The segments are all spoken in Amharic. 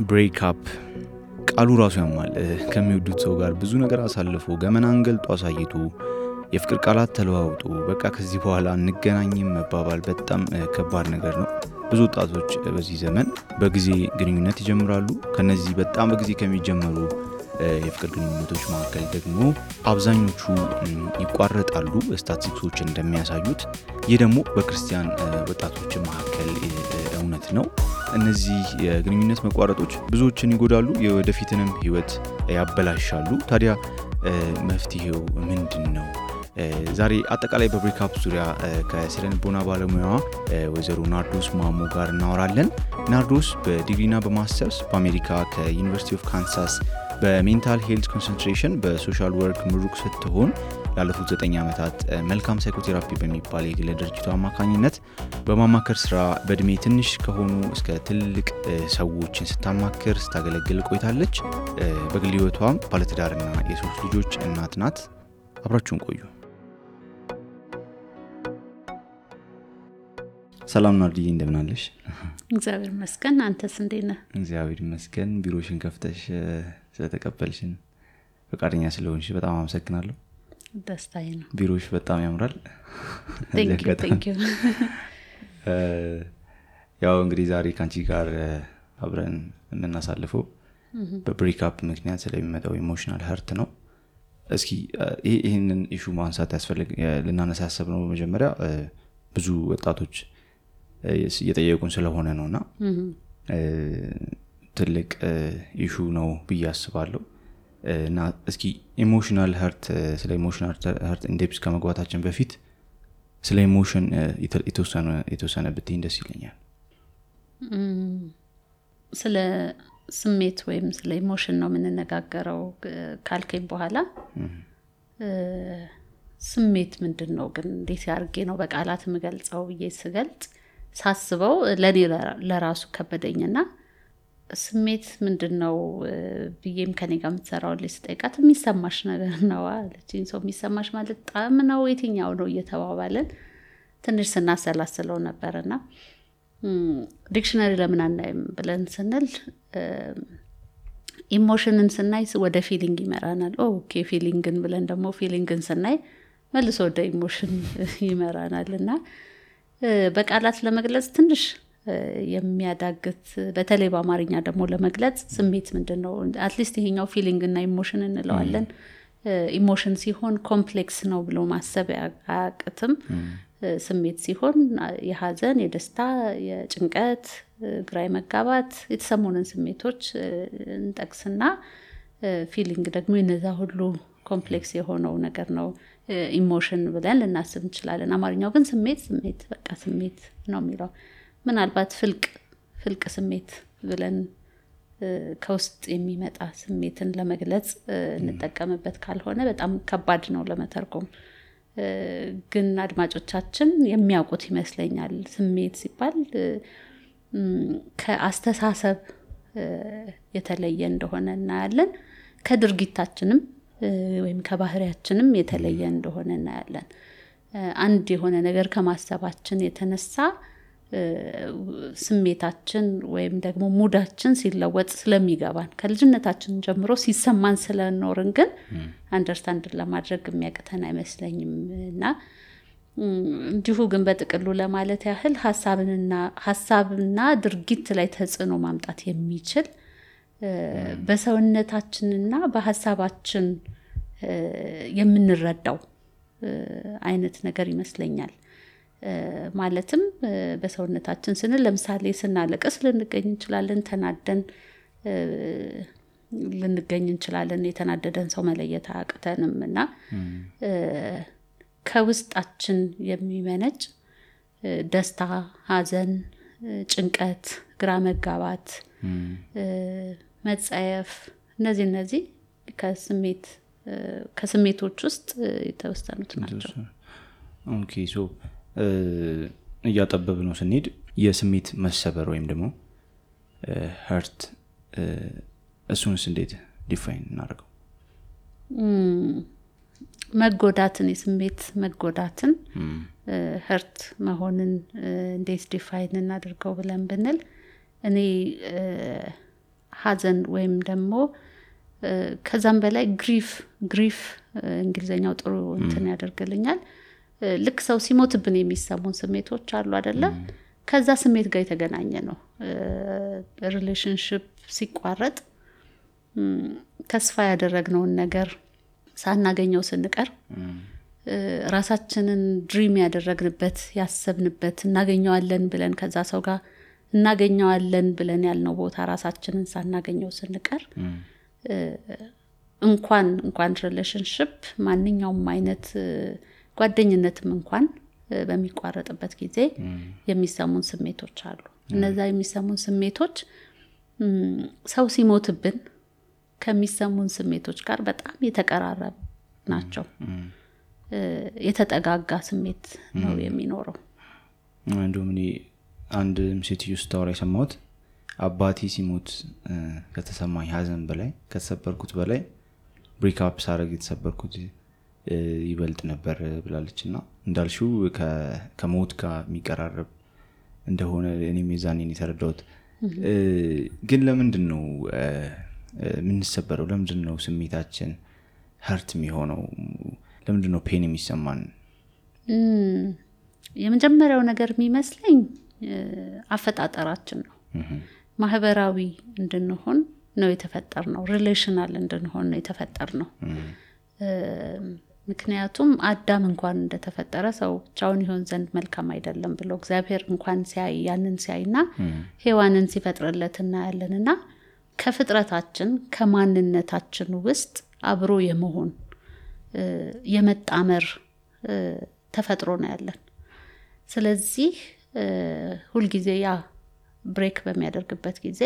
ብሬክ አፕ ቃሉ ራሱ ያማል። ከሚወዱት ሰው ጋር ብዙ ነገር አሳልፎ ገመናን ገልጦ አሳይቶ የፍቅር ቃላት ተለዋውጦ በቃ ከዚህ በኋላ እንገናኝም መባባል በጣም ከባድ ነገር ነው። ብዙ ወጣቶች በዚህ ዘመን በጊዜ ግንኙነት ይጀምራሉ። ከነዚህ በጣም በጊዜ ከሚጀምሩ የፍቅር ግንኙነቶች መካከል ደግሞ አብዛኞቹ ይቋረጣሉ ስታቲስቲክሶች እንደሚያሳዩት። ይህ ደግሞ በክርስቲያን ወጣቶች መካከል እውነት ነው። እነዚህ የግንኙነት መቋረጦች ብዙዎችን ይጎዳሉ፣ የወደፊትንም ህይወት ያበላሻሉ። ታዲያ መፍትሄው ምንድነው? ዛሬ አጠቃላይ በብሬክአፕ ዙሪያ ከስነ-ልቦና ባለሙያዋ ወይዘሮ ናርዶስ ማሞ ጋር እናወራለን። ናርዶስ በዲግሪና በማስተርስ በአሜሪካ ከዩኒቨርሲቲ ኦፍ ካንሳስ በሜንታል ሄልት ኮንሰንትሬሽን በሶሻል ወርክ ምሩቅ ስትሆን ላለፉት 9 ዓመታት መልካም ሳይኮቴራፒ በሚባል የግል ድርጅቱ አማካኝነት በማማከር ስራ በእድሜ ትንሽ ከሆኑ እስከ ትልቅ ሰዎችን ስታማክር ስታገለግል ቆይታለች። በግል ህይወቷም ባለትዳርና የሶስት ልጆች እናት ናት። አብራችሁን ቆዩ። ሰላም ናርዲዬ፣ እንደምን አለሽ? እግዚአብሔር ይመስገን። አንተስ እንዴት ነህ? እግዚአብሔር ይመስገን። ቢሮሽን ከፍተሽ ስለተቀበልሽን ፈቃደኛ ስለሆንሽ በጣም አመሰግናለሁ። ደስታዬ ነው። ቢሮሽ በጣም ያምራል። ቴንክ ዩ። ያው እንግዲህ ዛሬ ካንቺ ጋር አብረን የምናሳልፈው በብሬክአፕ ምክንያት ስለሚመጣው ኢሞሽናል ሀርት ነው። እስኪ ይሄንን ኢሹ ማንሳት ልናነሳ ያሰብነው መጀመሪያ ብዙ ወጣቶች እየጠየቁን ስለሆነ ነውና ትልቅ ኢሹ ነው ብዬ አስባለሁ። እና እስኪ ኢሞሽናል ሀርት ስለ ኢሞሽናል ሀርት ኢንዴፕስ ከመግባታችን በፊት ስለ ኢሞሽን የተወሰነ ብትይ ደስ ይለኛል። ስለ ስሜት ወይም ስለ ኢሞሽን ነው የምንነጋገረው ካልከኝ በኋላ ስሜት ምንድነው ግን እንዴት ያርጌ ነው በቃላት የምገልጸው ብዬ ስገልጽ ሳስበው ለኔ ለራሱ ከበደኝና ስሜት ምንድነው ብዬም ከኔ ጋር የምትሰራው ለስጠይቃት የሚሰማሽ ነገር ነው አለችኝ። ሰው የሚሰማሽ ማለት ጣም ነው የትኛው ነው እየተባባለን ትንሽ ስናሰላስለው ነበርና ዲክሽነሪ ለምን አናይም ብለን ስንል ኢሞሽንን ስናይ ወደ ፊሊንግ ይመራናል። ኦኬ ፊሊንግን ብለን ደግሞ ፊሊንግን ስናይ መልሶ ወደ ኢሞሽን ይመራናልና በቃላት ለመግለጽ ትንሽ የሚያዳግት በተለይ በአማርኛ ደግሞ ለመግለጽ ስሜት ምንድነው አትሊስት ይሄኛው ፊሊንግ እና ኢሞሽን እንለዋለን። ኢሞሽን ሲሆን ኮምፕሌክስ ነው ብሎ ማሰብ አያቅትም። ስሜት ሲሆን የሐዘን፣ የደስታ፣ የጭንቀት፣ ግራ መጋባት የተሰሙንን ስሜቶች እንጠቅስና ፊሊንግ ደግሞ እነዛ ሁሉ ኮምፕሌክስ የሆነው ነገር ነው ኢሞሽን ብለን ልናስብ እንችላለን። አማርኛው ግን ስሜት በቃ ስሜት ነው የሚለው። ምናልባት ፍልቅ ስሜት ብለን ከውስጥ የሚመጣ ስሜትን ለመግለጽ እንጠቀምበት ካልሆነ በጣም ከባድ ነው ለመተርጎም። ግን አድማጮቻችን የሚያውቁት ይመስለኛል። ስሜት ሲባል ከአስተሳሰብ የተለየ እንደሆነ እናያለን። ከድርጊታችንም ወይም ከባህሪያችንም የተለየ እንደሆነ እናያለን። አንድ የሆነ ነገር ከማሰባችን የተነሳ ስሜታችን ወይም ደግሞ ሙዳችን ሲለወጥ ስለሚገባን ከልጅነታችን ጀምሮ ሲሰማን ስለኖርን ግን አንደርስታንድ ለማድረግ የሚያቅተን አይመስለኝምና እንዲሁ ግን በጥቅሉ ለማለት ያህል ሐሳብና ድርጊት ላይ ተጽዕኖ ማምጣት የሚችል በሰውነታችንና በሐሳባችን የምንረዳው አይነት ነገር ይመስለኛል። ማለትም በሰውነታችን ስንል ለምሳሌ ስናለቅስ ልንገኝ እንችላለን፣ ተናደን ልንገኝ እንችላለን። የተናደደን ሰው መለየት አያቅተንምና ከውስጣችን የሚመነጭ ደስታ፣ ሐዘን፣ ጭንቀት፣ ግራ መጋባት፣ መጸየፍ እነዚህ ከስሜቶች ውስጥ የተወሰኑት ናቸው። ኦኬ ሶ እያጠበብ ነው ስንሄድ የስሜት መሰበር ወይም ደግሞ ሀርት እሱንስ እንዴት ዲፋይን እናደርገው? መጎዳትን የስሜት መጎዳትን hurt መሆንን እንዴት ዲፋይን እናድርገው ብለን ብንል እኔ ሐዘን ወይም ደግሞ ከዛም በላይ ግሪፍ እንግሊዘኛው ጥሩ እንትን ያደርግልኛል ልክ ሰው ሲሞትብን የሚሰሙን ስሜቶች አሉ አይደለ ከዛ ስሜት ጋር የተገናኘ ነው ሪሌሽንሺፕ ሲቋረጥ ተስፋ ያደረግነውን ነገር ሳናገኘው ስንቀር ራሳችንን ድሪም ያደረግንበት ያሰብንበት እናገኘዋለን ብለን ከዛ ሰው ጋር እናገኘዋለን ብለን ያልነው ቦታ ራሳችንን ሳናገኘው ስንቀር እንኳን ሪሌሽንሺፕ ማንኛውም አይነት ጓደኝነትም እንኳን በሚቋረጥበት ጊዜ የሚሰሙን ስሜቶች አሉ እነዛ የሚሰሙን ስሜቶች ሰው ሲሞትብን ከሚሰሙን ስሜቶች ጋር በጣም የተቀራረቡ ናቸው የተጠጋጋ ስሜት ነው የሚኖረው እንደውም እኔ አንድ ሴትዮ ስታወራ የሰማሁት አባቴ ሲሞት ከተሰማኝ ሐዘን በላይ ከተሰበርኩት በላይ ብሬክ አፕ ሳረግ የተሰበርኩት ይበልጥ ነበር ብላለችና እንዳልሽው ከሞት ጋር የሚቀራረብ እንደሆነ እኔም የዛኔን የተረዳሁት ግን ለምንድነው ምንሰበረው ለምንድነው ስሜታችን hurt የሚሆነው ለምንድነው ፔን የሚሰማን የመጀመሪያው ነገር የሚመስለኝ አፈጣጠራችን ነው ማህበራዊ እንድንሆን ነው የተፈጠርነው ሪሌሽናል እንድንሆን ነው የተፈጠርነው ምክንያቱም አዳም እንኳን እንደተፈጠረ ሰው ብቻውን ይሆን ዘንድ መልካም አይደለም ብሎ እግዚአብሔር እንኳን ያንን ሲያይና ሔዋንን ሲፈጥርለትና ያለንና ከፍጥረታችን ከማንነታችን ውስጥ አብሮ የመሆን የመጣመር ተፈጥሮ ነው ያለን ስለዚህ ሁሉ ጊዜ ያ ብሬክ በሚያደርግበት ጊዜ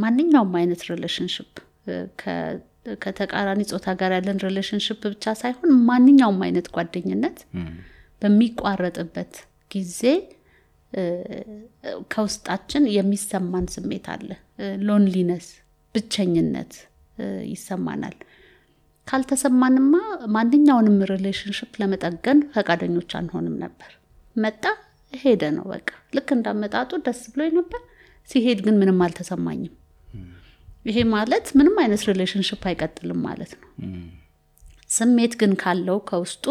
ማንኛውም አይነት ሪሌሽንሺፕ ከተቃራኒ ጾታ ጋር ያለን ሪሌሽንሺፕ ብቻ ሳይሆን ማንኛውም አይነት ጓደኝነት በሚቋረጥበት ጊዜ ከውስጣችን የሚሰማን ስሜት አለ ሎንሊነስ ብቸኝነት ይሰማናል ካልተሰማንማ ማንኛውንም ሪሌሽንሺፕ ለመጠገን ፈቃደኞች አንሆንም ነበር መጣ ሄደ ነው በቃ ልክ እንዳመጣጡ ደስ ብሎኝ ነበር ሲሄድ ግን ምንም አልተሰማኝም ይሄ ማለት ምንም አይነት ሪሌሽንሺፕ አይቀጥልም ማለት ነው ስሜት ግን ካለው ከውስጡ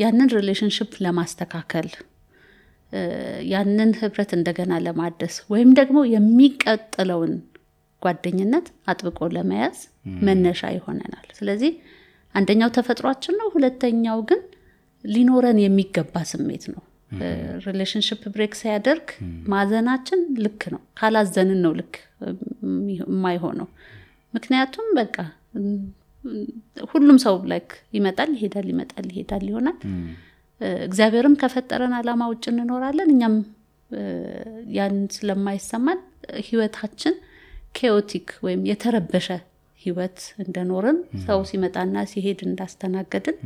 ያንን ሪሌሽንሺፕ ለማስተካከል ያንን ህብረት እንደገና ለማደስ ወይም ደግሞ የሚቀጥለውን ጓደኝነት አጥብቆ ለመያዝ መነሻ ይሆነናል ስለዚህ አንደኛው ተፈጥሯችን ነው ሁለተኛው ግን ሊኖረን የሚገባ ስሜት ነው ሪሌሽንሺፕ ብሬክ ሲያደርግ ማዘናችን ልክ ነው ካላዘንን ነው ልክ የማይሆነው ምክንያቱም በቃ ሁሉም ሰው ላይክ ይመጣል ይሄዳል ይሆናል እግዚአብሔርም ከፈጠረን ዓላማ ውጭ እንኖራለን እኛም ያን ስለማይሰማን ህይወታችን ኬኦቲክ ወይም የተረበሸ ህይወት እንደኖርን ሰው ሲመጣና ሲሄድ እንዳስተናገድን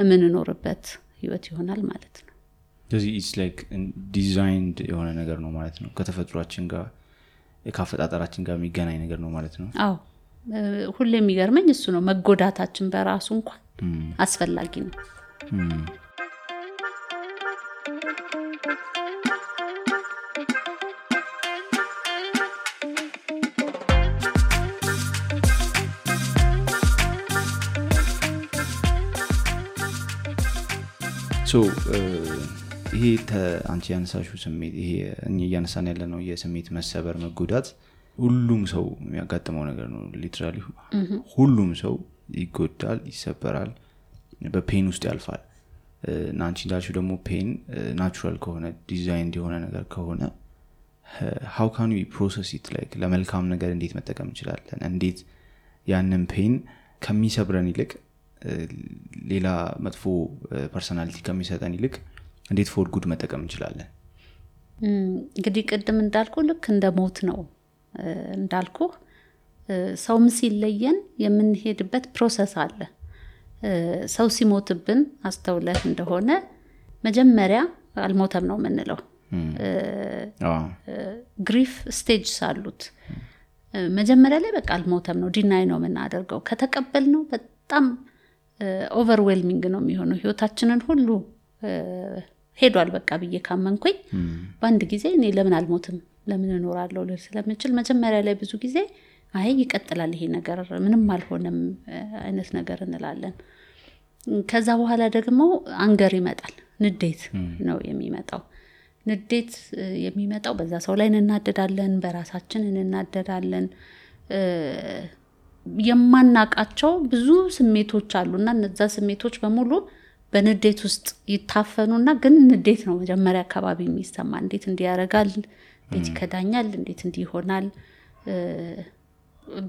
የምንኖርበት ህይወት ይሆናል ማለት ነው ስለዚህ it's like designed የሆነ ነገር ነው ማለት ነው ከተፈጥሯችን ጋር ከአፈጣጠራችን ጋር የሚገናኝ ነገር ነው ማለት ነው አዎ ሁሌ የሚገርመኝ እሱ ነው መጎዳታችን በራሱ እንኳን አስፈላጊ ነው so ይሄ አንቺ ያነሳሽው ስሜት ይሄ እኛ ያነሳን ያለነው የስሜት መሰበር መጎዳት ሁሉም ሰው የሚያጋጥመው ነገር ነው ሊትራሊ ሁሉም ሰው ይጎዳል ይሰበራል በፔን ውስጥ ያልፋል እና አንቺ እንዳልሽው ደግሞ ፔን ናቹራል ከሆነ ዲዛይን የሆነ ነገር ከሆነ how can we process it like ለመልካም ነገር እንዴት መጠቀም እንችላለን እንዴት ያንን ፔን ከሚሰብረን ይልቅ ሌላ መጥፎ ፐርሰናሊቲ ከሚሰጠን ይልቅ እንዴት ፎር ጉድ መጠቀም እንችላለን እንግዲህ ቀደም እንዳልኩ ልክ እንደ ሞት ነው እንዳልኩ ሰው ሲለየን የምንሄድበት ፕሮሰስ አለ ሰው ሲሞትብን አስተውለህ እንደሆነ መጀመሪያ አልሞተም ነው የምንለው ግሪፍ ስቴጅስ አሉት መጀመሪያ ላይ በቃ አልሞተም ነው ዲናይ ነው የምናደርገው። ከተቀበልነው በጣም ኦቨርዌልሚንግ ነው የሚሆነው። ህይወታችንን ሁሉ ሄዷል በቃ ብዬ ካመንኩኝ በአንድ ጊዜ እኔ ለምን አልሞትም ለምን እኖራለሁ ልል ስለምችል መጀመሪያ ላይ ብዙ ጊዜ አይ ይቀጥላል ይሄ ነገር ምንም አልሆነም አይነት ነገር እንላለን። ከዛ በኋላ ደግሞ አንገር ይመጣል፣ ንዴት ነው የሚመጣው። ንዴት የሚመጣው በዛ ሰው ላይ እንናደዳለን፣ በራሳችን እንናደዳለን። የማናቃቸው ብዙ ስሜቶች አሉና እነዛ ስሜቶች በሙሉ በንዴት ውስጥ ይታፈኑና ግን ንዴት ነው መጀመሪያ አካባቢ የሚሰማ። እንዴት እንዲያረጋል፣ እንዴት ይከዳኛል፣ እንዴት እንዲሆናል።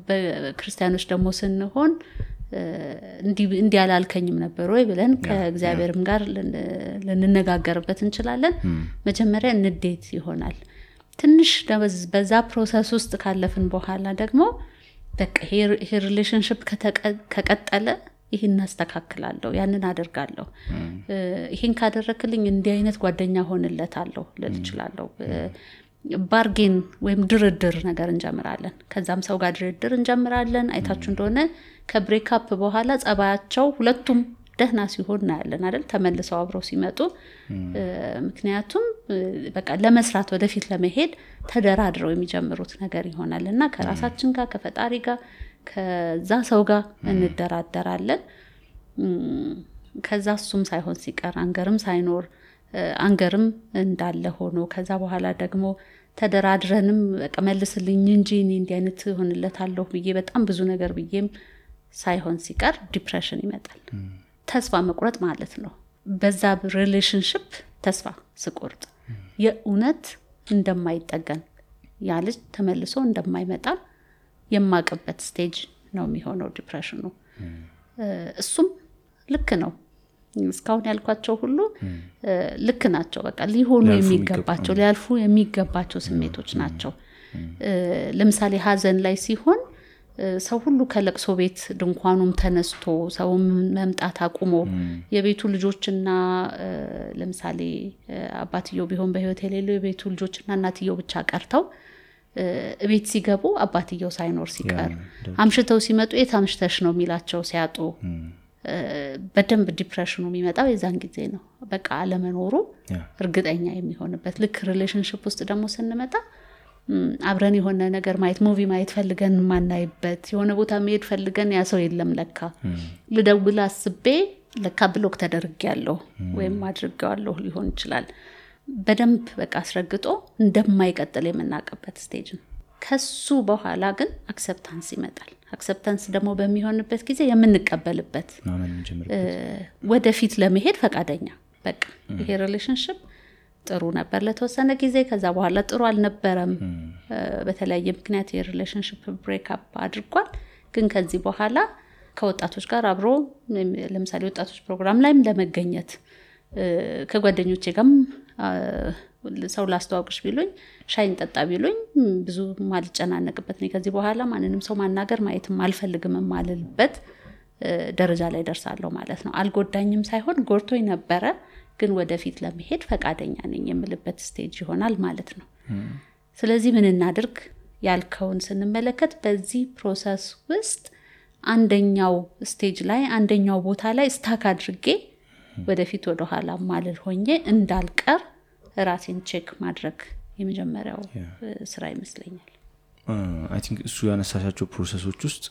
በክርስቲያኖች ደግሞ ስንሆን እንዲህ አላልከኝም ነበር ወይ ብለን ከእግዚአብሔርም ጋር ልንነጋገርበት እንችላለን። መጀመሪያ ንዴት ይሆናል። ትንሽ በዛ ፕሮሰስ ውስጥ ካለፍን በኋላ ደግሞ በቃ ይሄ ሪሌሽንሺፕ ከቀጠለ ይሄን አስተካክላለሁ፣ ያንን አደርጋለሁ፣ ይሄን ካደረክልኝ እንዲህ አይነት ጓደኛ ሆንለታለሁ ልል እችላለሁ። ባርጌን ወይም ድርድር ነገር እንጀምራለን። ከዛም ሰው ጋር ድርድር እንጀምራለን። አይታችሁ እንደሆነ ከብሬክ አፕ በኋላ ጸባያቸው ሁለቱም ደህና ሲሆን እናያለን አይደል? ተመልሰው አብረው ሲመጡ ምክንያቱም በቃ ለመስራት ወደፊት ለመሄድ ተደራድረው የሚጀምሩት ነገር ይሆናልና ከራሳችን ጋር ከፈጣሪ ጋር ከዛ ሰው ጋር እንደራደራለን። ከዛ እሱም ሳይሆን ሲቀር አንገርም ሳይኖር አንገርም እንዳለ ሆኖ ከዛ በኋላ ደግሞ ተደራድረንም በቃ መልስልኝ እንጂ እኔ እንዲህ አይነት ሆንለታለሁ ብዬ በጣም ብዙ ነገር ብዬም ሳይሆን ሲቀር ዲፕሬሽን ይመጣል። ተስፋ መቁረጥ ማለት ነው። በዛ ሪሌሽንሺፕ ተስፋ ስቆርጥ የእውነት እንደማይጠገን ያ ልጅ ተመልሶ እንደማይመጣ የማቀበት ስቴጅ ነው የሚሆነው ዲፕሬሽኑ። እሱም ልክ ነው። እስካሁን ያልኳቸው ሁሉ ልክ ናቸው። በቃ ሊሆኑ የሚገባቸው ሊያልፉ የሚገባቸው ስሜቶች ናቸው። ለምሳሌ ሀዘን ላይ ሲሆን ሰው ሁሉ ከለቅሶ ቤት ድንኳኑም ተነስቶ ሰው መምጣት አቁሞ የቤቱ ልጆችና ለምሳሌ አባትየው ቢሆን በህይወት የሌለው የቤቱ ልጆችና እናትየው ብቻ ቀርተው ቤት ሲገቡ አባትየው ሳይኖር ሲቀር አምሽተው ሲመጡ የታምሽተሽ ነው የሚላቸው ሲያጡ በደንብ ዲፕሬሽኑ የሚመጣው የዛን ጊዜ ነው። በቃ አለመኖሩ እርግጠኛ የሚሆንበት። ልክ ሪሌሽንሺፕ ውስጥ ደግሞ ስንመጣ አብረን የሆነ ነገር ማየት ሙቪ ማየት ፈልገን ማናይበት የሆነ ቦታ መሄድ ፈልገን ያ ሰው የለም ለካ ልደውል አስቤ ለካ ብሎክ ተደርጌያለሁ ወይም አድርጌዋለሁ ሊሆን ይችላል። በደንብ በቃ አስረግጦ እንደማይቀጥል የምናቀበት ስቴጅ ነው። ከሱ በኋላ ግን አክሰፕታንስ ይመጣል። አክሰፕታንስ ደግሞ በሚሆንበት ጊዜ የምንቀበልበት ወደፊት ለመሄድ ፈቃደኛ በቃ ይሄ ሪሌሽንሺፕ ጥሩ ነበር ለተወሰነ ጊዜ፣ ከዛ በኋላ ጥሩ አልነበረም። በተለያየ ምክንያት የሪሌሽንሺፕ ብሬክ አፕ አድርጓል። ግን ከዚህ በኋላ ከወጣቶች ጋር አብሮ ለምሳሌ ወጣቶች ፕሮግራም ላይም ለመገኘት ከጓደኞቼ ጋርም ሰው ላስተዋውቅሽ ቢሉኝ ሻይን ጠጣ ቢሉኝ ብዙ ማልጨናነቅበት ነው። ከዚህ በኋላ ማንንም ሰው ማናገር ማየትም አልፈልግም ማለልበት ደረጃ ላይ ደርሳለሁ ማለት ነው። አልጎዳኝም ሳይሆን ጎርቶኝ ነበረ፣ ግን ወደፊት ለመሄድ ፈቃደኛ ነኝ የምልበት ስቴጅ ይሆናል ማለት ነው። ስለዚህ ምን እናድርግ ያልከውን ስንመለከት በዚህ ፕሮሰስ ውስጥ አንደኛው ስቴጅ ላይ አንደኛው ቦታ ላይ ስታክ አድርጌ ወደፊት ወደ ኋላ ማለል ሆኜ እንዳልቀር ራሴን ቼክ ማድረግ የመጀመሪያው ስራ ይመስለኛል። አይ ቲንክ እሱ ያነሳሻቸው ፕሮሰሶች ውስጥ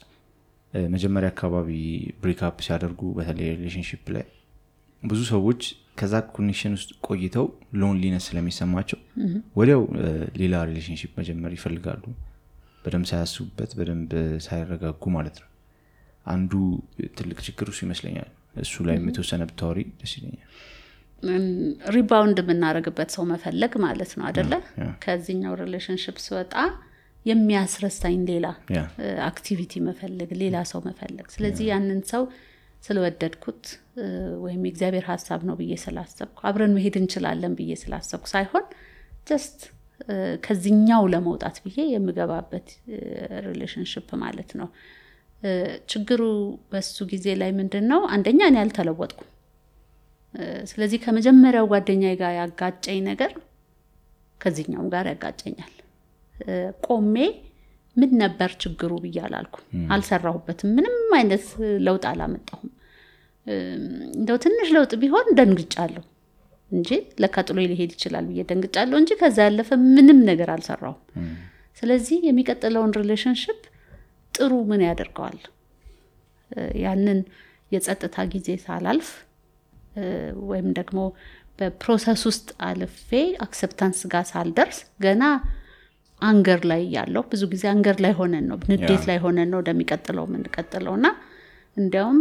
መጀመሪያ አካባቢ ብሬክ አፕ ሲያደርጉ በተለይ ሪሌሽንሺፕ ላይ ብዙ ሰዎች ከዛ ኮኔክሽን ውስጥ ቆይተው ሎንሊነስ ስለሚሰማቸው ወዲያው ሌላ ሪሌሽንሺፕ መጀመር ይፈልጋሉ፣ በደንብ ሳያስቡበት በደንብ ሳይረጋጉ ማለት ነው። አንዱ ትልቅ ችግር እሱ ይመስለኛል። እሱ ላይ የተወሰነ ብታወሪ ደስ ይለኛል። ሪባውንድ የምናደርግበት ሰው መፈለግ ማለት ነው አይደለ? ከዚህኛው ሪሌሽንሺፕ ሲወጣ የሚያስረሳኝ ሌላ አክቲቪቲ መፈለግ፣ ሌላ ሰው መፈለግ። ስለዚህ ያንን ሰው ስለወደድኩት ወይም የእግዚአብሔር ሐሳብ ነው ብዬ ስላሰብኩ አብረን መሄድ እንችላለን ብዬ ስላሰብኩ ሳይሆን ጀስት ከዚህኛው ለመውጣት ብዬ የምገባበት ሪሌሽንሺፕ ማለት ነው። ችግሩ በሱ ጊዜ ላይ ምንድነው? አንደኛ እኔ አልተለወጥኩም። ስለዚህ ከመጀመሪያው ጓደኛዬ ጋር ያጋጨኝ ነገር ከዚህኛው ጋር ያጋጨኛል። ቆሜ ምን ነበር ችግሩ ብያላልኩ አልሰራሁበትም ምንም አይነት ለውጥ አላመጣሁም እንደው ትንሽ ለውጥ ቢሆን ደንግጫለሁ እንጂ ለካጥሎ ሊሄድ ይችላል ብዬ ደንግጫለሁ እንጂ ከዛ ያለፈ ምንም ነገር አልሰራሁም ስለዚህ የሚቀጥለውን ሪሌሽንሺፕ ጥሩ ምን ያደርገዋል ያንን የጸጥታ ጊዜ ሳላልፍ ወይም ደግሞ በፕሮሰስ ውስጥ አልፌ አክሰፕታንስ ጋር ሳልደርስ ገና አንገር ላይ ያለው ብዙ ጊዜ አንገር ላይ ሆነን ነው ንዴት ላይ ሆነን ነው እንደሚቀጥለው ምን ቀጥለውና እንዲያውም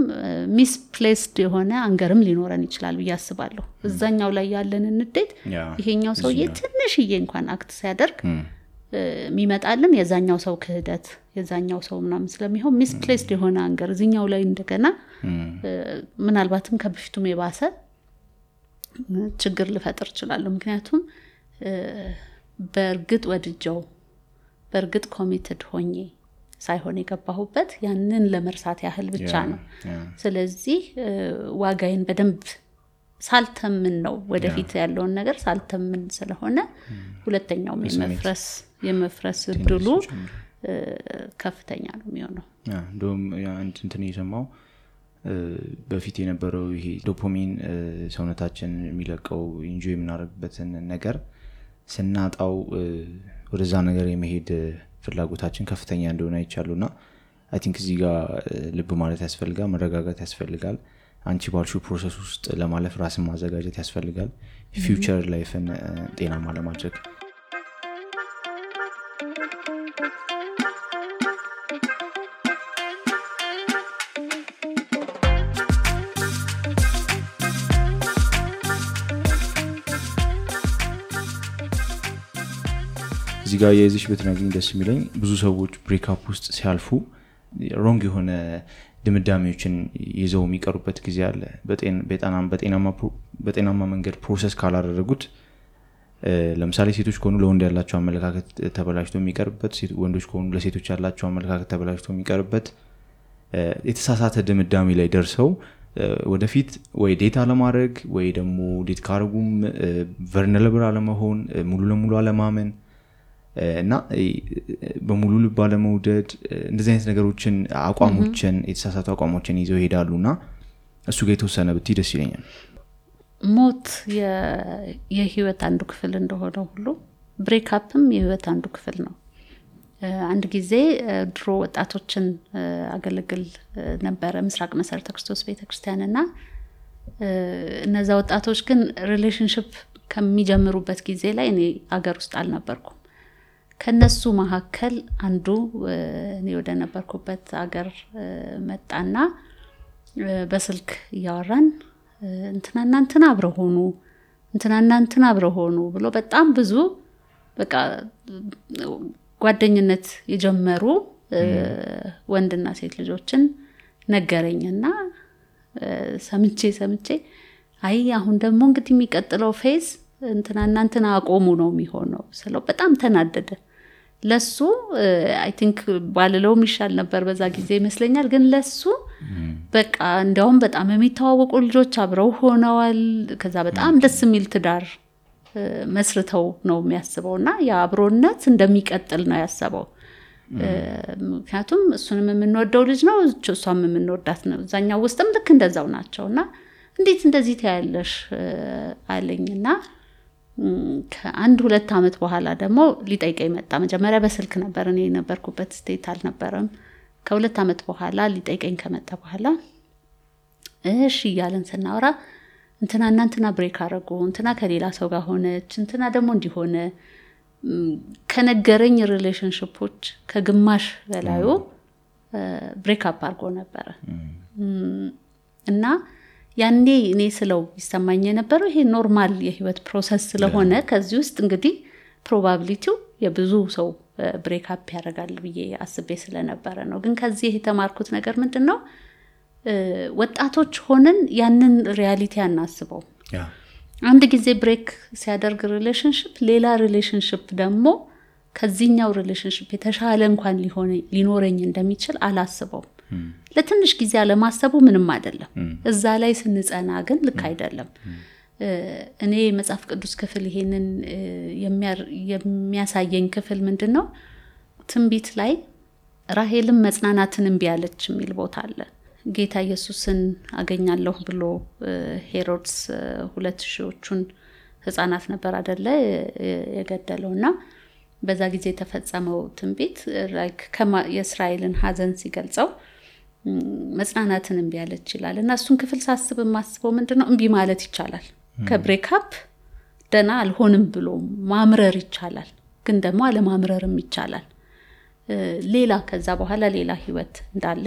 ሚስፕሌስድ የሆነ አንገርም ሊኖረን ይችላል ብዬ አስባለሁ እዛኛው ላይ ያለን ንዴት ይሄኛው ሰውዬ ትንሽዬ እንኳን አክት ሲያደርግ የሚመጣልን የዛኛው ሰው ክህደት የዛኛው ሰው ምናምን ስለሚሆን ሚስፕሌስድ የሆነ አንገር እዚኛው ላይ እንደገና ምናልባትም ከበፊቱም የባሰ ችግር ልፈጥር ይችላል ምክንያቱም በርግጥ ወድጀው በርግጥ ኮሚትድ ሆኜ ሳይሆን የገባሁበት ያንን ለመርሳት ያህል ብቻ ነው ስለዚህ ዋጋዬን በደንብ ሳልተምን ነው ወደፊት ያለውን ነገር ሳልተምን ስለሆነ ሁለተኛው የመፍረስ እድሉ ከፍተኛ ነው የሚሆነው እንደውም አንድ እንትን የሰማው በፊት የነበረው ይሄ ዶፓሚን ሰውነታችን የሚለቀው ኢንጆይ የምናደርግበትን ነገር ስናጣው ወደዛ ነገር የመሄድ ፍላጎታችን ከፍተኛ እንደሆነ አይቻሉና አይ ቲንክ እዚህ ጋር ልብ ማለት ያስፈልጋል መረጋጋት ያስፈልጋል አንቺ ባልሽው ፕሮሰስ ውስጥ ለማለፍ ራስን ማዘጋጀት ያስፈልጋል ፊውቸር ላይፍን ጤናማ ለማድረግ እዚህ ጋር የዚሽ በትናገኝ ደስ የሚለኝ ብዙ ሰዎች ብሬክ አፕ ውስጥ ሲያልፉ ሮንግ የሆነ ድምዳሜዎችን ይዘው የሚቀሩበት ጊዜ አለ በጤናማ መንገድ ፕሮሰስ ካላደረጉት ለምሳሌ ሴቶች ከሆኑ ለወንድ ያላቸው አመለካከት ተበላሽቶ የሚቀርበት ወንዶች ከሆኑ ለሴቶች ያላቸው አመለካከት ተበላሽቶ የሚቀርበት የተሳሳተ ድምዳሜ ላይ ደርሰው ወደፊት ወይ ዴታ ለማድረግ ወይ ደግሞ ዴት ካርጉም ቨርነለብል አለመሆን ሙሉ ለሙሉ አለማመን እና በሙሉ ልብ አለመውደድ እንደዚህ አይነት ነገሮችን አቋሞችን የተሳሳቱ አቋሞችን ይዘው ይሄዳሉና እሱ ጋር የተወሰነ ብትይ ደስ ይለኛል ሞት የህይወት አንዱ ክፍል እንደሆነ ሁሉ ብሬክ አፕም የህይወት አንዱ ክፍል ነው አንድ ጊዜ ድሮ ወጣቶችን አገለግል ነበር ምስራቅ መሰረተ ክርስቶስ ቤተክርስቲያንና እነዛ ወጣቶች ግን ሪሌሽንሺፕ ከሚጀምሩበት ጊዜ ላይ እኔ አገር ውስጥ አልነበርኩም ከነሱ መሐከል አንዱ እኔ ወደ ነበርኩበት አገር መጣና በስልክ ያወራን እንትና አብረው ሆኑ ብሎ በጣም ብዙ በቃ ጓደኝነት የጀመሩ ወንድና ሴት ልጆችን ነገረኝና ሰምቼ አይ አሁን ደግሞ እንግዲህ የሚቀጥለው ፌዝ እንትና አቆሙ ነው የሚሆነው ስለው በጣም ተናደደ ለሱ አይ ቲንክ ባልለውም ይሻል ነበር በዛ ጊዜ ይመስለኛል ግን ለሱ በቃ እንደውም በጣም የሚተዋወቁ ልጆች አብረው ሆነዋል ከዛ በጣም ደስ የሚል ትዳር መስርተው ነው የሚያስበውና ያ አብሮነት እንደሚቀጥል ነው ያሰበው ምክንያቱም እሱንም የምንወደው ልጅ ነው እሷም የምንወዳት ነው እዛኛው ውስጥም ልክ እንደዛው ናቸውና እንዴት እንደዚህ ታያለሽ አለኝና ከአንድ 2 አመት በኋላ ደግሞ ሊጠይቀኝ መጣ መጀመሪያ በስልክ ነበር እኔ ነበርኩበት ስቴት አልነበረም ከ2 አመት በኋላ ሊጠይቀኝ ከመጣ በኋላ እሺ ያለን ስናወራ እንትና ብሬክ አረጉ እንትና ከሌላ ሰው ጋር ሆነች እንትና ደግሞ እንዲሆነ ከነገረኝ ሪሌሽንሺፖች ከግማሽ በላዩ ብሬክ አፕ አርጎ ነበር እና ያኔ እኔ ስለው ይሰማኝ የነበረው ይሄ ኖርማል የህይወት ፕሮሰስ ስለሆነ ከዚህ ውስጥ እንግዲህ ፕሮባቢሊቲው የብዙ ሰው ብሬክ አፕ ያደርጋል ብዬ አስቤ ስለነበረ ነው ግን ከዚህ የተማርኩት ነገር ምንድነው ወጣቶች ሆነን ያንን ሪያሊቲ አናስበው አንድ ጊዜ ብሬክ ሲያደርግ ሪሌሽንሺፕ ሌላ ሪሌሽንሺፕ ደግሞ ከዚህኛው ሪሌሽንሺፕ የተሻለ እንኳን ሊኖረኝ እንደሚችል አላስበው ለትንሽ ጊዜ አለማሰቡ ምንም አይደለም እዛ ላይ ስንጸና ግን ልክ አይደለም እኔ መጽሐፍ ቅዱስ ክፍል ይሄንን የሚያሳየኝ ክፍል ምንድነው ትንቢት ላይ ራሄልም መጽናናትን እምቢ አለች የሚል ቦታ አለ። ጌታ ኢየሱስን አገኛለሁ ብሎ ሄሮድስ 2000ዎቹን ህፃናት ነበር አይደለ የገደለውና በዛ ጊዜ የተፈጸመው ትንቢት ላይክ የእስራኤልን ሐዘን ሲገልጸው መጽናናትን እምቢ አለች ይላል። እና እሱን ክፍል ሳስብ ማስበው ምንድነው እምቢ ማለት ይቻላል። ከብሬክአፕ ደና አልሆንም ብሎ ማምረር ይቻላል፣ ግን ደግሞ አለማምረርም ይቻላል። ሌላ ከዛ በኋላ ሌላ ህይወት እንዳለ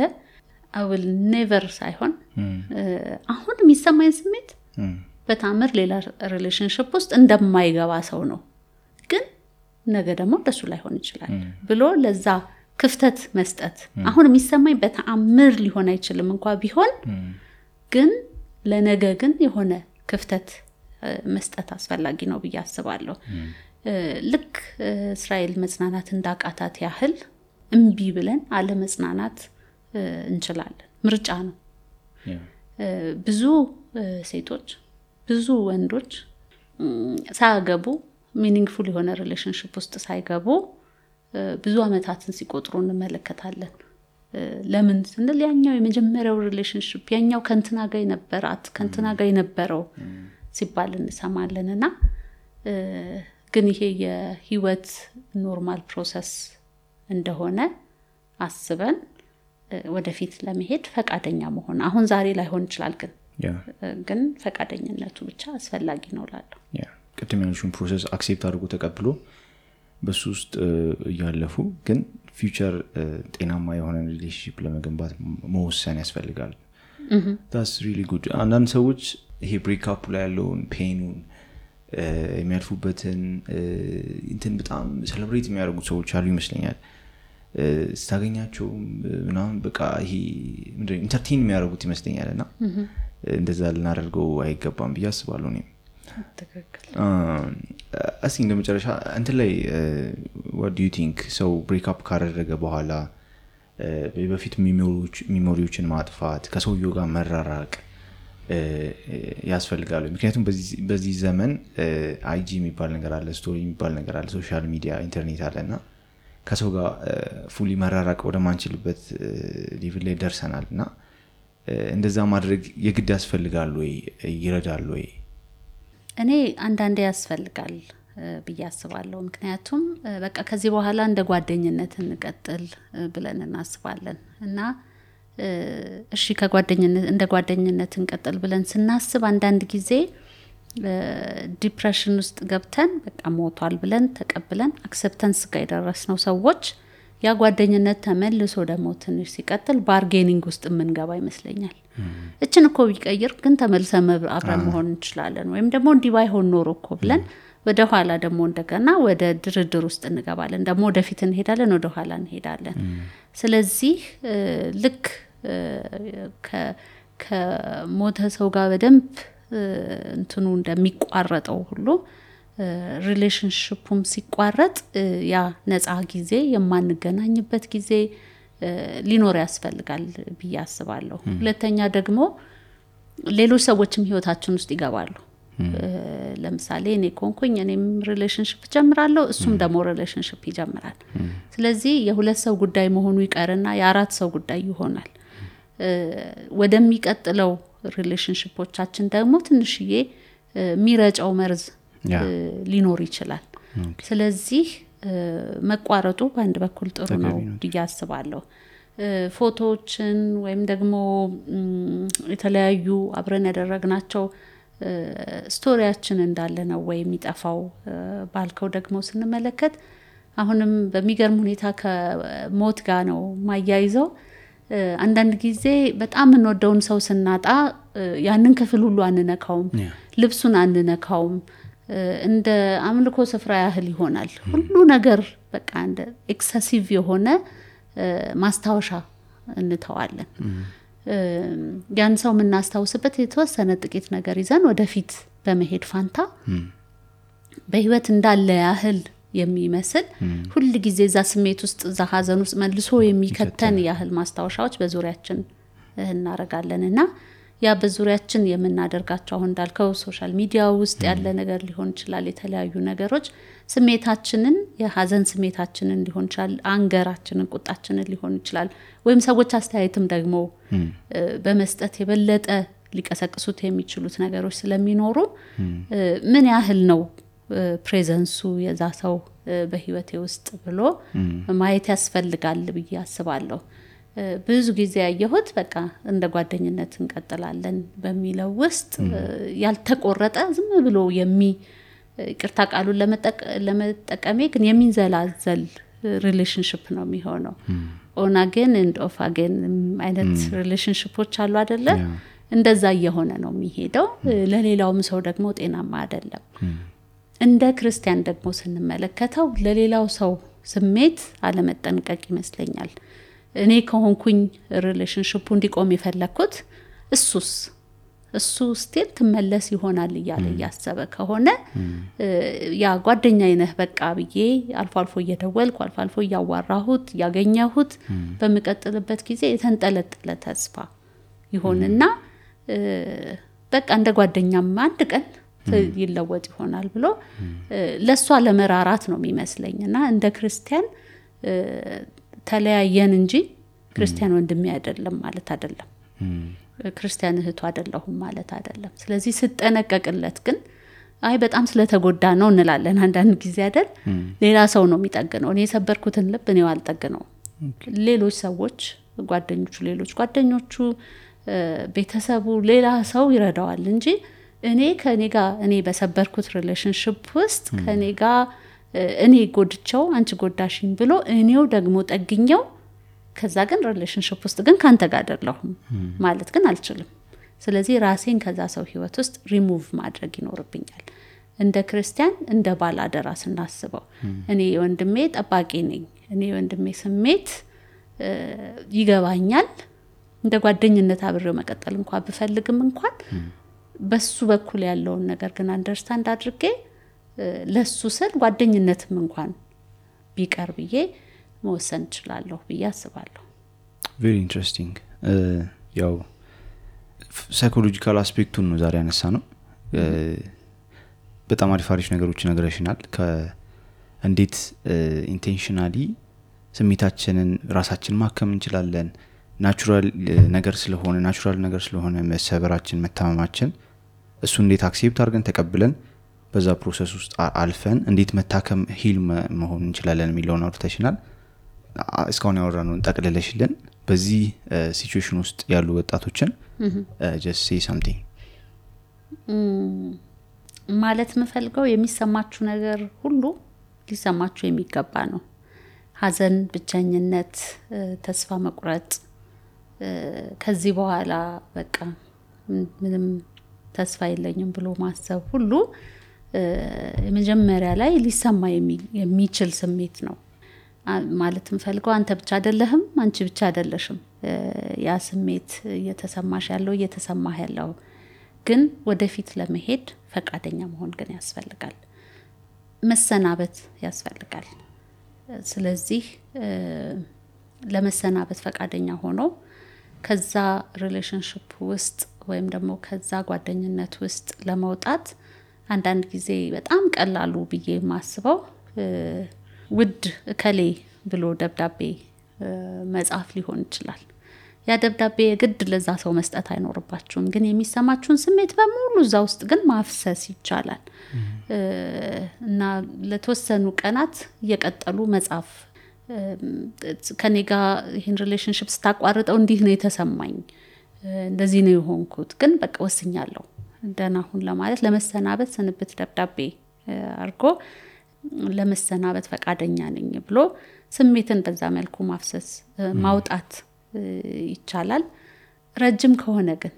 I will never ሳይሆን አሁን የሚሰማኝ ስሜት በታምር ሌላ ሪሌሽንሺፕ ውስጥ እንደማይገባ ሰው ነው፣ ግን ነገ ደግሞ እንደሱ ላይሆን ይችላል ብሎ ለዛ ክፍተት መስጠት። አሁን የሚሰማኝ በታምር ሊሆን አይችልም እንኳን ቢሆን፣ ግን ለነገ ግን የሆነ ክፍተት መስጠት አስፈላጊ ነው ብዬ አስባለሁ። ልክ እስራኤል መጽናናት እንዳቃታት ያህል እምቢ ብለን አለ መጽናናት እንችላለን። ምርጫ ነው። ብዙ ሴቶች ብዙ ወንዶች ሳያገቡ ሚኒንግፉል የሆነ ሪሌሽንሺፕ ውስጥ ሳይገቡ ብዙ አመታትን ሲቆጥሩ እንመለከታለን። ለምን ስንል ያኛው የመጀመሪያው ሪሌሽንሺፕ ያኛው ከንትና ጋር የነበራት ከንትና ጋር የነበረው ሲባል እንሰማለንና ግን ይሄ የህይወት ኖርማል ፕሮሰስ እንደሆነ አስበን ወደፊት ለመሄድ ፈቃደኛ መሆን አሁን ዛሬ ላይሆን ይችላል፣ ግን ፈቃደኝነቱ ብቻ አስፈላጊ ነው ላለው ቅድም ያልሽውን ፕሮሰስ አክሴፕት አድርጎ ተቀብሎ በሱ ውስጥ ያለፉ ግን ፊውቸር ጤናማ የሆነ ሪሌሽንሺፕ ለመገንባት መወሰን ያስፈልጋል። that's really good። አንዳንድ ሰዎች ይሄ ብሬክአፕ ላይ ያለውን ፔኑን የሚያልፉበትን እንትን በጣም ሴሌብሬት የሚያደርጉ ሰዎች አሉ ይመስለኛል። ስታገኛቸው ምናምን በቃ ይሄ ምንድነው ኢንተርቴይን የሚያደርጉት ይመስለኛልና እንደዛ ልናደርገው አይገባም ብዬ አስባለሁ እኔ። ተከክል እስኪ እንደመጨረሻ እንትን ላይ what do you think ሰው ብሬክአፕ ካደረገ በኋላ በፊት ሚሞሪዎችን ማጥፋት ከሰውየው ጋር መራራቅ ያስፈልጋል? ምክንያቱም በዚህ ዘመን አይጂ የሚባል ነገር አለ፣ ስቶሪ የሚባል ነገር አለ፣ ሶሻል ሚዲያ ኢንተርኔት አለና ከሰው ጋር ፉሊ መራራቅ ወደ ማንችልበት ሌቭል ላይ ደርሰናልና እንደዛ ማድረግ የግድ ያስፈልጋል ወይ ይረዳል ወይ? እኔ አንዳንዴ ያስፈልጋል ብዬ አስባለሁ። ምክንያቱም በቃ ከዚህ በኋላ እንደ ጓደኝነት እንቀጥል ብለን እናስባለን እና እሺ ከጓደኝነት እንደ ጓደኝነት እንቀጥል ብለን ስናስብ አንዳንድ ጊዜ ዲፕሬሽን ውስጥ ገብተን በቃ ሞቷል ብለን ተቀብለን አክሰፕታንስ ጋር የደረስነው ሰዎች ያ ጓደኝነት ተመልሶ ደግሞ ትንሽ ሲቀጥል ባርጌኒንግ ውስጥ የምንገባ ይመስለኛል። እችን እኮ ቢቀይር ግን ተመልሰን አብረን መሆን እንችላለን፣ ወይም ደግሞ እንዲህ ባይሆን ኖሮ እኮ ብለን ወደ ኋላ ደግሞ እንደገና ወደ ድርድር ውስጥ እንገባለን። ደግሞ ወደፊት እንሄዳለን፣ ወደ ኋላ እንሄዳለን። ስለዚህ ልክ ከሞተ ሰው ጋር በደንብ እንትኑ እንደሚቋረጠው ሁሉ ሪሌሽንሺፑም ሲቋረጥ ያ ነፃ ጊዜ የማንገናኝበት ጊዜ ሊኖር ያስፈልጋል ብዬ አስባለሁ። ሁለተኛ ደግሞ ሌሎች ሰዎችም ህይወታችን ውስጥ ይገባሉ። ለምሳሌ እኔ ኮንኩኝ እኔም ሪሌሽንሺፕ ጀምራለሁ፣ እሱም ደግሞ ሪሌሽንሺፕ ይጀምራል። ስለዚህ የሁለት ሰው ጉዳይ መሆኑ ይቀርና የአራት ሰው ጉዳይ ይሆናል። ወደሚቀጥለው ሪሌሽንሺፖቻችን ደግሞ ትንሽዬ ሚረጫው መርዝ ሊኖር ይችላል። ስለዚህ መቋረጡ በአንድ በኩል ጥሩ ነው ብዬ አስባለሁ። ፎቶዎችን ወይም ደግሞ የተለያዩ አብረን ያደረግናቸው ስቶሪያችን እንዳለ ነው ወይ የሚጠፋው ባልከው ደግሞ ስንመለከት አሁንም በሚገርም ሁኔታ ከሞት ጋር ነው ማያይዘው። አንዳንድ ጊዜ በጣም እንወደውን ሰው ስናጣ ያንን ክፍል ሁሉ አንነካውም፣ ልብሱን አንነካውም፣ እንደ አምልኮ ስፍራ ያህል ይሆናል ሁሉ ነገር። በቃ እንደ ኤክሰሲቭ የሆነ ማስታወሻ እንተዋለን። ያን ሰው የምናስታውስበት የተወሰነ ጥቂት ነገር ይዘን ወደፊት በመሄድ ፋንታ በህይወት እንዳለ ያህል የሚመስል ሁሉ ጊዜ እዛ ስሜት ውስጥ እዛ ሀዘን ውስጥ መልሶ የሚከተን ያህል ማስታወሻዎች በዙሪያችን እናረጋለንና ያ በዙሪያችን የምናደርጋቸው አሁን እንዳልከው ሶሻል ሚዲያ ውስጥ ያለ ነገር ሊሆን ይችላል የተለያዩ ነገሮች ስሜታችንን የሐዘን ስሜታችንን ሊሆን ይችላል አንገራችንን ቁጣችንን ሊሆን ይችላል ወይም ሰዎች አስተያየትም ደግሞ በመስጠት የበለጠ ሊቀሰቅሱት የሚችሉት ነገሮች ስለሚኖሩ ምን ያህል ነው ፕሬዘንሱ የዛ ሰው በህይወቴ ውስጥ ብሎ ማየት ያስፈልጋል ብዬ አስባለሁ ብዙ ጊዜ ያየሁት በቃ እንደ ጓደኝነት እንቀጥላለን በሚለው ውስጥ ያልተቆረጠ ዝም ብሎ ይቅርታ ቃሉን ለመጠቀም ግን የሚንዘላዘል ሪሌሽንሺፕ ነው የሚሆነው ኦን አገን ኤንድ ኦፍ አገን አይነት ሪሌሽንሺፖች አሉ አይደለ እንደዛ እየሆነ ነው የሚሄደው ለሌላውም ሰው ደግሞ ጤናማ አይደለም እንደ ክርስቲያን ደግሞ ስንመለከተው ለሌላው ሰው ስሜት አለመጠንቀቅ ይመስለኛል እኔ ከሆንኩኝ ሪሌሽንሺፑ እንዲቆም የፈለኩት እሱ ስቲል ትመለስ ይሆናል ይያለ ያሰበ ከሆነ ያ ጓደኛዬ ነህ በቃ ብዬ አልፎ እየደወልኩ አልፎ ያዋራሁት ያገኘሁት በመቀጠልበት ጊዜ የተንጠለጠለ ተስፋ ይሆንና በቃ እንደ ጓደኛም አንድ ቀን ይለወጥ ይሆናል ብሎ ለሷ ለመራራት ነው የሚመስለኝና እንደ ክርስቲያን ተለያየን እንጂ ክርስቲያን ወንድሜ አይደለም ማለት አይደለም ክርስቲያን እህቱ አይደለሁም ማለት አይደለም ስለዚህ ስጠነቀቅለት ግን አይ በጣም ስለተጎዳ ነው እንላለን አንዳንድ ጊዜ አይደል ሌላ ሰው ነው የሚጠግነው እኔ የሰበርኩትን ልብ እኔው አልጠግነው ሌሎች ሰዎች ጓደኞቹ ቤተሰቡ ሌላ ሰው ይረዳዋል እንጂ እኔ ከኔ ጋር እኔ በሰበርኩት ሪሌሽንሺፕ ውስጥ ከኔ ጋር እኔ ጎድቻው አንቺ ጎዳሽኝ ብሎ እኔው ደግሞ ጠግኛው ከዛ ግን ሪሌሽንሺፕ ውስጥ ግን ካንተ ጋር አይደለሁም ማለት ግን አልችልም ስለዚህ ራሴን ከዛ ሰው ህይወት ውስጥ ሪሙቭ ማድረግ ይኖርብኛል እንደ ክርስቲያን እንደ ባላደራ ስናስበው እኔ ወንድሜ ጠባቂ ነኝ እኔ ወንድሜ ስሜት ይገባኛል እንደ ጓደኝነት አብሬው መቀጠል እንኳን ብፈልግም እንኳን በሱ በኩል ያለውን ነገር ግን አንደርስታንድ አድርጌ ለሱ ስል ጓደኝነትም እንኳን ቢቀር ብዬ መወሰን እችላለሁ ብዬ አስባለሁ very interesting ያው ሳይኮሎጂካል አስፔክቱን ነው ዛሬ ያነሳ ነው በጣም አሪፍ ነገሮች ነገርሽናል እንዴት ኢንቴንሽናሊ ስሜታችንን ራሳችን ማከም እንችላለን ናቹራል ነገር ስለሆነ መሰበራችን መታመማችን እሱ እንዴት አክሴፕት አድርገን ተቀብለን በዛ ፕሮሰስ ውስጥ አልፈን እንዴት መታከም ሂል መሆን እንችላለን የሚለውን አውርተሽናል እስካሁን ያወራነውን ጠቅልለሽልን በዚህ ሲቹዌሽን ውስጥ ያሉ ወጣቶችን just say something ማለት መፈልገው የሚሰማችሁ ነገር ሁሉ ሊሰማችሁ የሚገባ ነው ሐዘን ብቸኝነት ተስፋ መቁረጥ ከዚህ በኋላ በቃ ምንም ተስፋ የለኝም ብሎ ማሰብ ሁሉ የመጀመሪያ ላይ ሊሰማ የሚችል ስሜት ነው ማለት መፈልገው አንተ ብቻ አይደለህም አንቺ ብቻ አይደለሽም ያ ስሜት እየተሰማህ ያለው ግን ወደፊት ለመሄድ ፈቃደኛ መሆን ግን ያስፈልጋል መሰናበት ያስፈልጋል ስለዚህ ለመሰናበት ፈቃደኛ ሆኖ ከዛ ሪሌሽንሺፕ ውስጥ ወይም ደግሞ ከዛ ጓደኝነት ውስጥ ለመውጣት አንዳንድ ጊዜ በጣም ቀላሉ ብዬ ማስበው ውድ ከሌ ብሎ ደብዳቤ መጻፍ ሊሆን ይችላል ያ ደብዳቤ ግድ ለዛ ሰው መስጠት አይኖርባችሁም ግን የሚሰማችሁን ስሜት በሙሉ እዛ ውስጥ ግን ማፍሰስ ይቻላል እና ለተወሰኑ ቀናት እየቀጠሉ መጻፍ ከኔ ጋር ይሄን ሪሌሽንሺፕ ስታቋርጠው እንዲህ ነው የተሰማኝ እንደዚህ ነው የሆንኩት ግን በቃ ወስኛለሁ ደህና ሁን ለማለት ለመሰናበት ስንብት ደብዳቤ አርጎ ለመሰናበት ፈቃደኛ ነኝ ብሎ ስሜትን በዛ መልኩ ማፍሰስ ማውጣት ይቻላል ረጅም ከሆነ ግን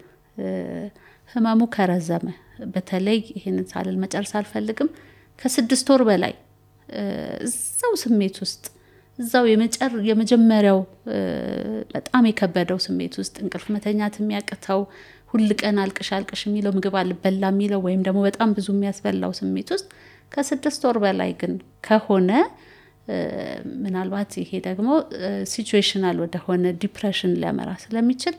ህመሙ ከረዘመ በተለይ ይሄንን ሳልል መጨረስ አልፈልግም ከ6 ወር በላይ እዛው ስሜት ውስጥ እዛው የመጀመሪያው በጣም የከበደው ስሜት ውስጥ እንቅልፍ መተኛት የሚያቅተው ሁሉ ቀን አልቅሽ የሚለው ምግብ አልበላ የሚለው ወይም ደግሞ በጣም ብዙ የሚያስበላው ስሜት ውስጥ ከ6 ወር በላይ ግን ከሆነ ምናልባት ይሄ ደግሞ ሲቹዌሽናል ወደ ሆነ ዲፕሬሽን ሊያመራ ስለሚችል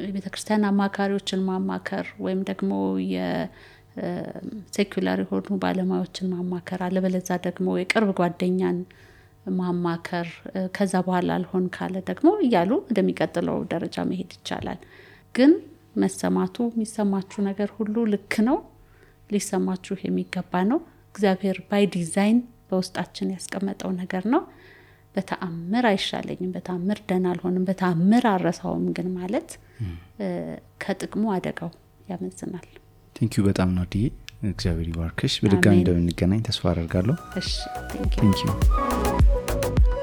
የቤተክርስቲያን አማካሪዎችን ማማከር ወይም ደግሞ የሴኩላር የሆኑ ባለሙያዎችን ማማከር አለበለዛ ደግሞ የቅርብ ጓደኛን ማማከር ከዛ በኋላ አልሆን ካለ ደግሞ እያሉ ወደሚቀጥለው ደረጃ መሄድ ይቻላል። ግን መሰማቱ የሚሰማችሁ ነገር ሁሉ ልክ ነው፣ ሊሰማችሁ የሚገባ ነው። እግዚአብሔር ባይ ዲዛይን በውስጣችን ያስቀመጠው ነገር ነው። በተአምር አይሻለኝም፣ በተአምር ደህና አልሆንም፣ በተአምር አረሳውም ግን ማለት ከጥቅሙ አደጋው ያመዝናል። ቴንኪዩ በጣም ናዲዬ፣ እግዚአብሔር ይባርክሽ። በድጋሚ እንደምንገናኝ ተስፋ አደርጋለሁ። እሺ ቴንኪዩ።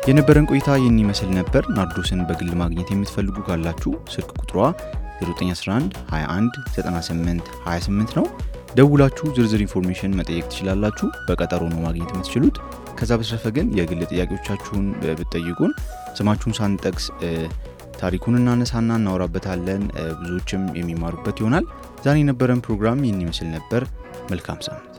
የነበረን ቆይታ ይህን ይመስል ነበር። ናርዶስን በግል ማግኘት የምትፈልጉ ካላችሁ ስልክ ቁጥሯ 0911 21 98 28 ነው። ደውላችሁ ዝርዝር ኢንፎርሜሽን መጠየቅ ትችላላችሁ። በቀጠሮ ነው ማግኘት የምትችሉት። ከዛ በተረፈ ግን የግል ጥያቄዎቻችሁን ብትጠይቁን ስማችሁን ሳንጠቅስ ታሪኩን እናነሳና እናወራበታለን። ብዙዎችም የሚማሩበት ይሆናል። ዛሬ የነበረን ፕሮግራም ይህን ይመስል ነበር። መልካም ሳምንት።